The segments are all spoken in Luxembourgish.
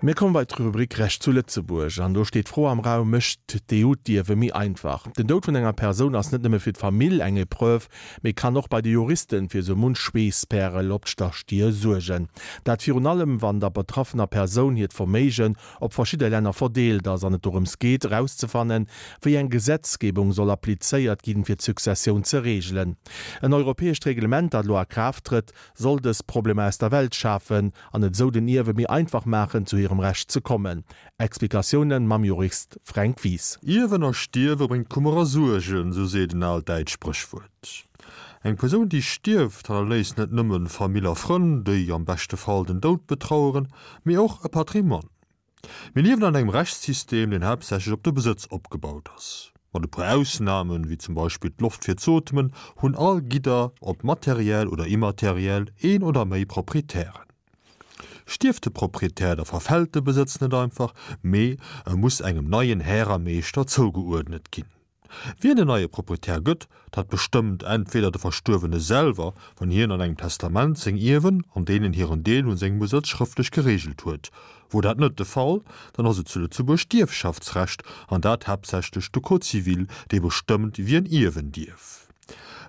Mir komme bei d'Rubrik Recht zu Lëtzebuerg an do steet d'Fro am Raum, Mécht d'EU d'Ierwe méi einfach? Den Doud vun enger Persoun ass net nëmme fir d'Famill eng Epreuve, mee kann och bei de Juristen fir sou munch Schweesspärel op d'Stier suergen. Dat virun allem, wann der betraffener Persoun hiert Verméigen op verschidde Länner verdeelt ass an et dorëms geet, erauszefannen, wéi eng Gesetzgebung soll applizéiert ginn, fir d'Successioun ze reegelen. En europäescht Reglement, dat elo a Kraaft trëtt, soll dës Problemer aus der Welt schafen an et esou den Ierwe méi einfach maachen, zu hirem Recht ze kommen. Explikatiounen mam Jurist Fränk Wies. Ierwen a Stierwe bréngt Kummer a Suergen, sou seet en aalt däitscht Spréchwuert. Eng Persoun, déi stierft, hannerléisst net nëmmen Famill a Frënn, déi am beschte Fall den Doud betraueren, mee och e Patrimoine. Mir liewen an engem Rechtssystem, deen haaptsächlech op de Besëtz opgebaut ass. Mat e puer Ausnamen, wéi zum Beispill d'Loft fir z'ootmen, hunn all Gidder, ob materiell oder immateriell, een oder méi Proprietären. Stierft de Proprietär, da verfält de Besëtz net einfach, mee e muss engem neien Här a Meeschter zougeuerdnet ginn. Wien den neie Proprietär gëtt, dat bestëmmt entweder de Verstuerwene selwer, wann hien an engem Testament seng Ierwen an deenen hiren Deel un sengem Besëtz schrëftlech gereegelt huet. Wor dat net de Fall, dann ass et zu Lëtzebuerg d'Ierfschaftsrecht, an dat haaptsächlech de Code civil, dee bestëmmt, wien ierwen dierf.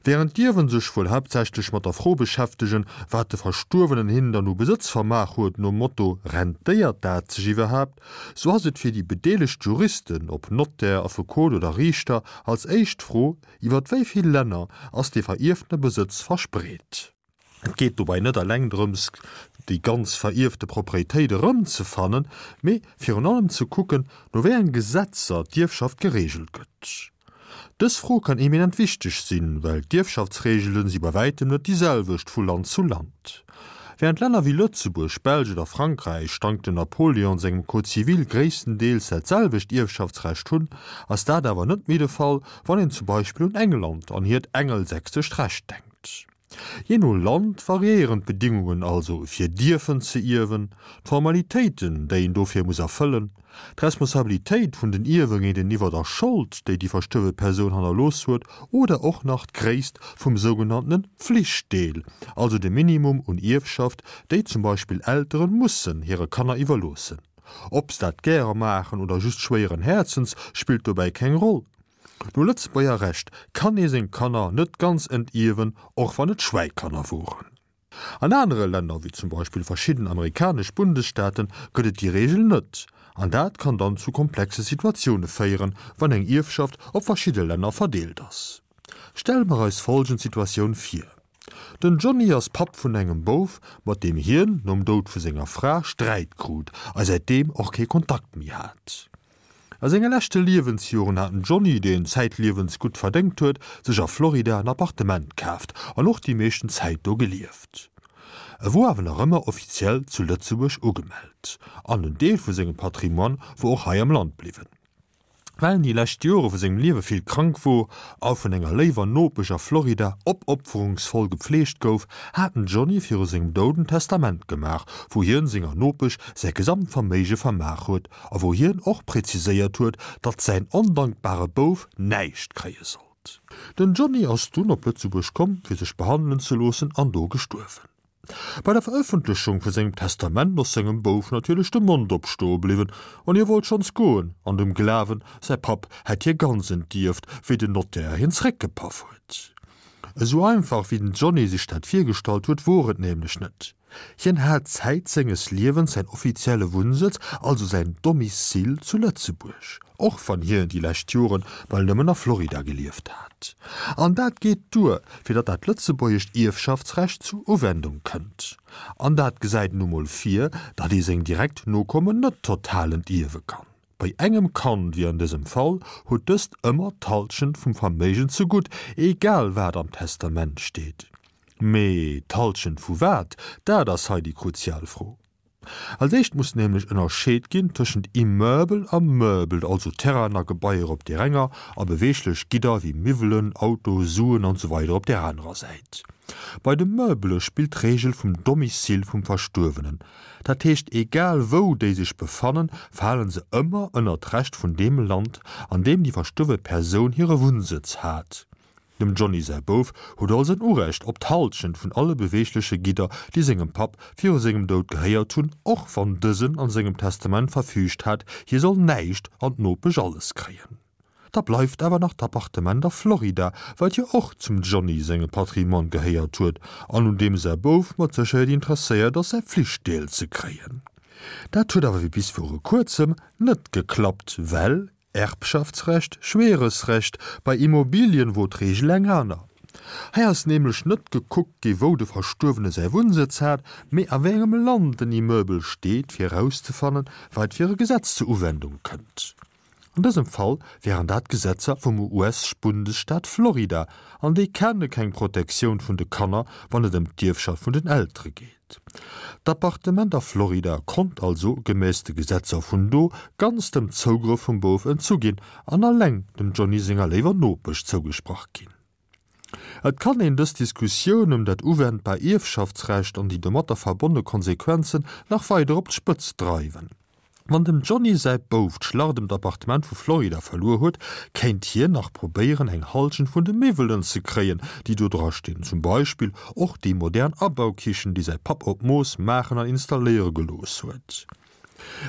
Wärend d'Ierwen sech wuel haaptsächlech mat der Fro beschäftegen, wat de Verstuerwenen hinnen dann u Besëtz vermaach huet, nom Motto Rentéiert dat sech iwwerhaapt? sou ass et fir déi bedeelegt Juristen, ob Nottär, Affekot oder Riichter, als éischt d'Fro, Iwwer wéi vill Länner ass dee verierftene Besëtz verspreet? Et geet dobäi net eleng drëms, déi ganz verierfte Proprietéit erëmzefannen, mee virun allem ze kucken, no wéi enge Gesetzer d'Ierfschaft gereegelt gëtt. Dës Fro kann eminent wichteg sinn, well d'Ierfschaftsreegele si bei wäitem net déi selwecht vu Land zu Land. Wärend Länner wéi Lëtzebuerg, Belsch oder Frankräich dank dem Napoleon sengem Code civil gréisstendeels dat selwecht Ierfschaftsrecht hunn, ass dat awer net méi de Fall, wann een zum Beispill un England an hiert engelsächsescht Recht denkt. Jee no Land variéieren d'Bedingungen also fir dierfen ze ierwen, d'Formalitéiten, déi een dofir muss erfëllen, d'Responsabilitéit vun den Ierwe géinteniwwer der Schold, déi déi verstuerwe Persoun hannerlooss huet, oder och nach d'Gréisst vum sougenanntene Pflichtdeel, also de Minimum un Ierfschaft, déi zum Beispill Eltere mussen hire Kanner iwwerloossen. Ob se dat gäre maachen oder just schwéieren Häerzens, spillt dobäi keng Roll. No Lëtzebuerger Recht kann ee seng Kanner net ganz entierwen, och wann et Schwäikanner woren. An anere Länner, wéi zum Beispill verschidden amerikanesch Bundesstaaten, gëtt et déi Reegel net, an dat kann dann zu komplexe Situatioune féieren, wann eng Ierfschaft op verschidde Länner verdeelt ass. Stelle mer eis folgend Situatioun vir, Den Johnny ass Papp vun engem Bouf, mat deem hien nom Doud vu senger Fra Sträit krut a säitdeem och kee Kontakt méi hat. A senge leschte Liewensjoren hat den Johnny, deen zäitliewens gutt verdéngt huet, sech a Florida en Appartement kaaft an och déi meeschten Zäit do gelieft. E wor awer nach ëmmer offiziell zu Lëtzebuerg ugemellt an en Deel vu sengem Patrimoine wor och hei am Land bliwwen. Well en déi lescht Jore vu sengem Liewe vill krank wor a vun enger léiwer Nopesch a Florida opopferungsvoll gepfleegt gouf, hat den Johnny viru sengem Doud en Testament gemaach, wou hien senger Nopesch säi gesamt Verméige vermaach huet a wou hien och präziséiert huet, datt säin ondankbare Bouf näischt kréie sollt. Den Johnny ass dunn op Lëtzebuerg komm, fir sech behandelen ze loossen an do gestuerwen. Bei der Verëffentlechung vu sengem Testament ass sengem Bouf natierlech de Mond opstoe bliwwen an hie wollt schonns goen, an dem Glawen, säi Papp hätt hie ganz entierft, wéi den Notaire hien zeréckgepaff huet. Esou einfach, wéi den Johnny sech dat virgestallt huet, wor et nämlech net. Hien hat Zäit senges Liewens säin offizielle Wunnsëtz, also säin Domicile zu Lëtzebuerg. Och wann hien déi lescht Joren bal nëmmen a Florida gelieft hat. An dat geet duer, fir datt dat lëtzebuergescht Ierfschaftsrecht zur Uwendung kënnt. An dat gesäit nu mol vir, datt ee seng direkt Nokommen net total entierwe kann. Bei engem Kand, wéi an dësem Fall, huet dëst ëmmer d'Halschent vum Verméigen zegutt, egal wat am Testament steet. Mee d'Halschent vu wat? Dat ass hei déi kruzial Fro. Als éischt muss nämlech ënnerscheet ginn tëschent Immeuble a Meuble, also Terrainen a Gebaier op där enger a beweeglech Gidder wéi Miwwelen, Auto, Suen an esou weider op där anerer Säit. Bei de Meublë spillt d'Reegel vum Domicile vum Verstuerwenen. Dat heescht, egal wou déi sech befannen, fale se ëmmer ënner d'Recht vun deem Land, an deem déi verstuerwe Persoun hire Wunnsëtz hat. Dem Johnny säi Bouf huet also en Urecht op d'Hallschent vun alle beweegleche Gidder, déi sengem Papp viru sengem Doud gehéiert hunn, och wann dësen an sengem Testament verfüügt hat, hie soll näischt an d'Nopesch alles kréien. Da bleift awer nach d'Appartement a Florida, wat jo och zum Johnny sengem Patrimoine gehéiert huet an un deem säi Bouf mat Sécherheet interesséiert ass, säi Flichtdeel ze kréien. Dat huet awer wéi bis viru kuerzem net geklappt, well Erbschaftsrecht, schweres Recht, bei Immobilien wor d'Reegel eng aner. Hei ass nämlech net gekuckt gi wou de Verstuerwene säi Wunnsëtz hat, mee a wéi engem Land den Immeubel steet, fir erauszefannen, wat fir e Gesetz zur Uwendung kënnt. An dësem Fall wären dat d'Gesetzer vum US-Bundesstaat Florida, an déi kenne keng Protektioun vun de Kanner, wann et ëm d'Ierfschaft vun den Eltere geet. D'Appartement a Florida konnt also, gemäss de Gesetzer vun do, ganz dem Zougrëff vum Bouf entzu ginn an alleng dem Johnny senger léiwer Nopesch zougesprach ginn. Et kann een dës Diskussioun ëm dat uwendbar Ierfschaftsrecht an déi domatter verbonne Konsequenzen nach weider op d'Spëtzt dreiwen. Wann dem Johnny säi Bouf d'Schlacht ëm d'Appartement vu Florida verluer huet, kéint hien nach probéieren eng Halschent vun de Miwwelen ze kréien, déi do dra stinn, zum Beispill och déi modern Abaukichen, déi säi Papp op Mooss maachen an installéiere gelooss huet.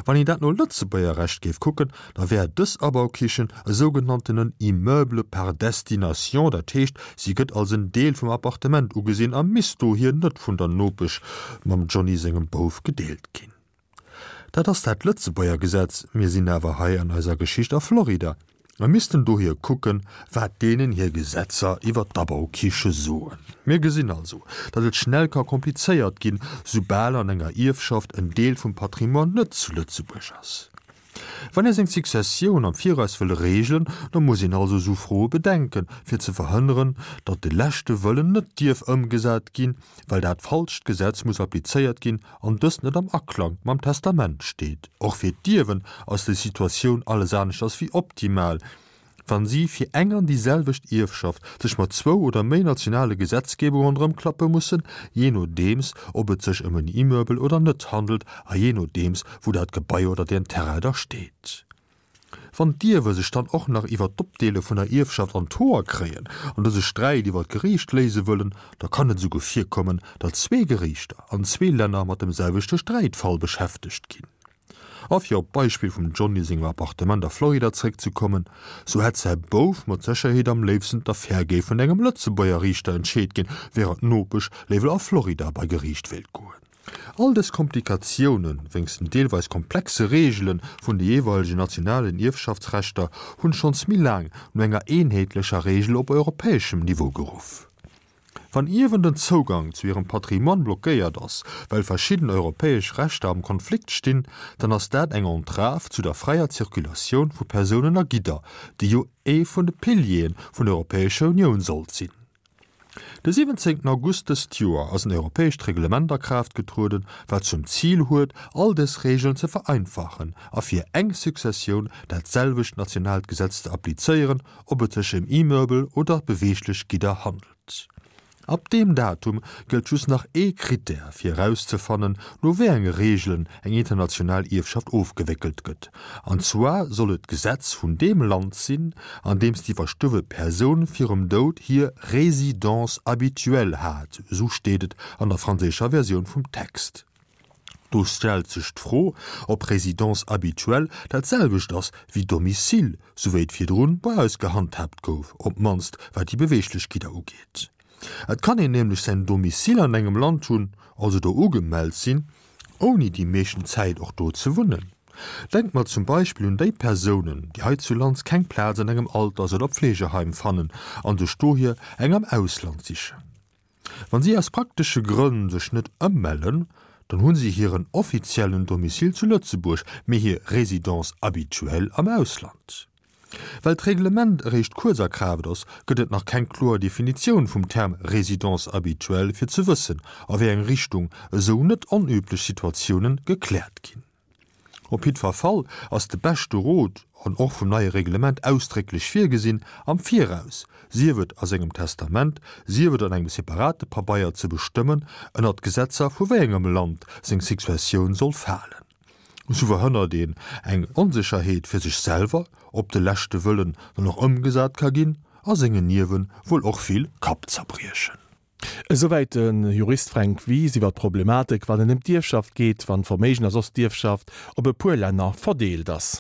Wann een dat no Lëtzebuerger Recht géif kucken, da wär dës Abaukichen e sougenanntenen Immeuble par destination, dat heescht, si gëtt als en Deel vum Appartement ugesinn a misst dohier net vun der Nopesch mam Johnny sengem Bouf gedeelt ginn. Dat ass dat Lëtzebuerger Gesetz, mir sinn awer hei an eiser Geschicht a Florida a missten dohier kucken, wat deenen hir Gesetzer iwwer d'Abaukiche soen. Mir gesinn also, datt et schnell ka komplizéiert ginn, soubal an enger Ierfschaft en Deel vum Patrimoine net zu Lëtzebuerg ass. Wann ee seng Successioun am Viraus wëll reegelen, da muss een also esou Froe bedenken, fir ze verhënneren, datt de leschte Wëllen net dierf ëmgesat ginn, well dat falscht Gesetz muss applizéiert ginn an dëst net am Aklang mam Testament steet. Och fir d'Ierwen ass déi Situatioun alles aneschters wéi optimal, wann si fir eng an déi selwecht Ierfschaft sech mat zwou oder méi nationale Gesetzgebungen erëmklappe mussen, jee nodeems ob et sech ëm en Immeuble oder net handelt a jee nodeems wou dat Gebai oder deen Terrain da steet. Wann d'Ierwe sech dann och nach iwwer d'Opdeele vun der Ierfschaft an d'Hoer kréien an dëse Sträit iwwer d'Geriicht léise wëllen, da kann et esouguer virkommen, datt zwee Geriichter an zwee Länner mat dem selwechte Sträitfall beschäftegt ginn. A fir op d'Beispill vum Johnny sengem Appartement a Florida zeréckzekommen, sou hätt säi Bouf mat Sécherheet am léifsten d'Affär géif vun engem Lëtzebuerger Riichter entscheet ginn, wärend d'Nopesch léiwer a Florida bei Geriicht wéilt goen. All dës Komplikatiounen, wéinst den deelweis komplexe Reegele vun de jeeweilegen nationalen Ierfschaftsrechter, hunn schonns méi laang no enger eenheetlecher Reegel op europäeschem Niveau geruff. Wann Ierwen den Zougang zu hirem Patrimoine blockéiert ass, well verschidden europäesch Rechter am Konflikt stinn, dann ass dat eng Entrave zu der fräier Zirkulatioun vu Persounen a Gidder, déi jo ee vun de Piliere vun der Europäescher Unioun sollt sinn. De 17 August dëst Joer ass en europäescht Reglement a Kraaft getrueden, wat zum Zil huet, all dës Regeln ze vereinfachen a fir eng Successioun dat selwecht nationaalt Gesetz ze applizéieren, ob et sech ëm Immeuble oder beweeglech Gidder handelt. Ab deem Datum gëllt just nach ee Krittär fir erauszefannen, no wéi enge Reegelen eng international Ierfschaft ofgewéckelt gëtt, an zwar soll et d'Gesetz vun deem Land sinn, an deem déi verstuerwe Persoun virum Doud hir Résidence habituelle hat, esou steet et an der franséischer Versioun vum Text. Do stellt sech d'Fro, ob Résidence habituelle dat selwecht ass wéi Domicile, sou wéi et virdrun bei eis gehandhaabt gouf, op d'mannst wat déi beweeglech Gidder ugeet. Et kann een nämlech säin Domicile an engem Land hunn, also do ugemellt sinn, ouni déi meeschten Zäit och do ze wunnen. Denkt mer zum Beispill un déi Persounen, déi heizulands keng Plaz an engem Alters oder Pflegeheim fannen an sech dohier eng am Ausland sichen. Wann si aus praktesche Grënn sech net ëmmellen, dann hu si hiren offiziellen Domicile zu Lëtzebuerg, mee hir Résidence habituelle am Ausland. Well d'Reglement eréischt kuerz a Kraaft ass, gëtt et nach keng kloer Definitioun vum Term Résidence habituelle fir ze wëssen, a wéi eng Richtung esou net onüblech Situatiounen gekläert ginn. Op jiddwer Fall ass de beschte Rot, an och vum neie Reglement ausdrécklech virgesinn, am Viraus, sief et a sengem Testament, sief et an engem separate Pabeier, ze bestëmmen, ënnert d'Gesetzer vu wéi engem Land seng Successioun soll falen. Esou verhënnert een eng Onsécherheet fir sech selwer, ob de leschte Wëllen dann och ëmgesat ka ginn. a sengen Ierwe wuel och vill Kappzerbriechen. Esouwäit de Jurist Fränk Wies iwwer d'Problematik, wann et ëm d'Ierfschaft geet, wann d'Verméigen a soss d'Ierfschaft op e puer Länner verdeelt ass.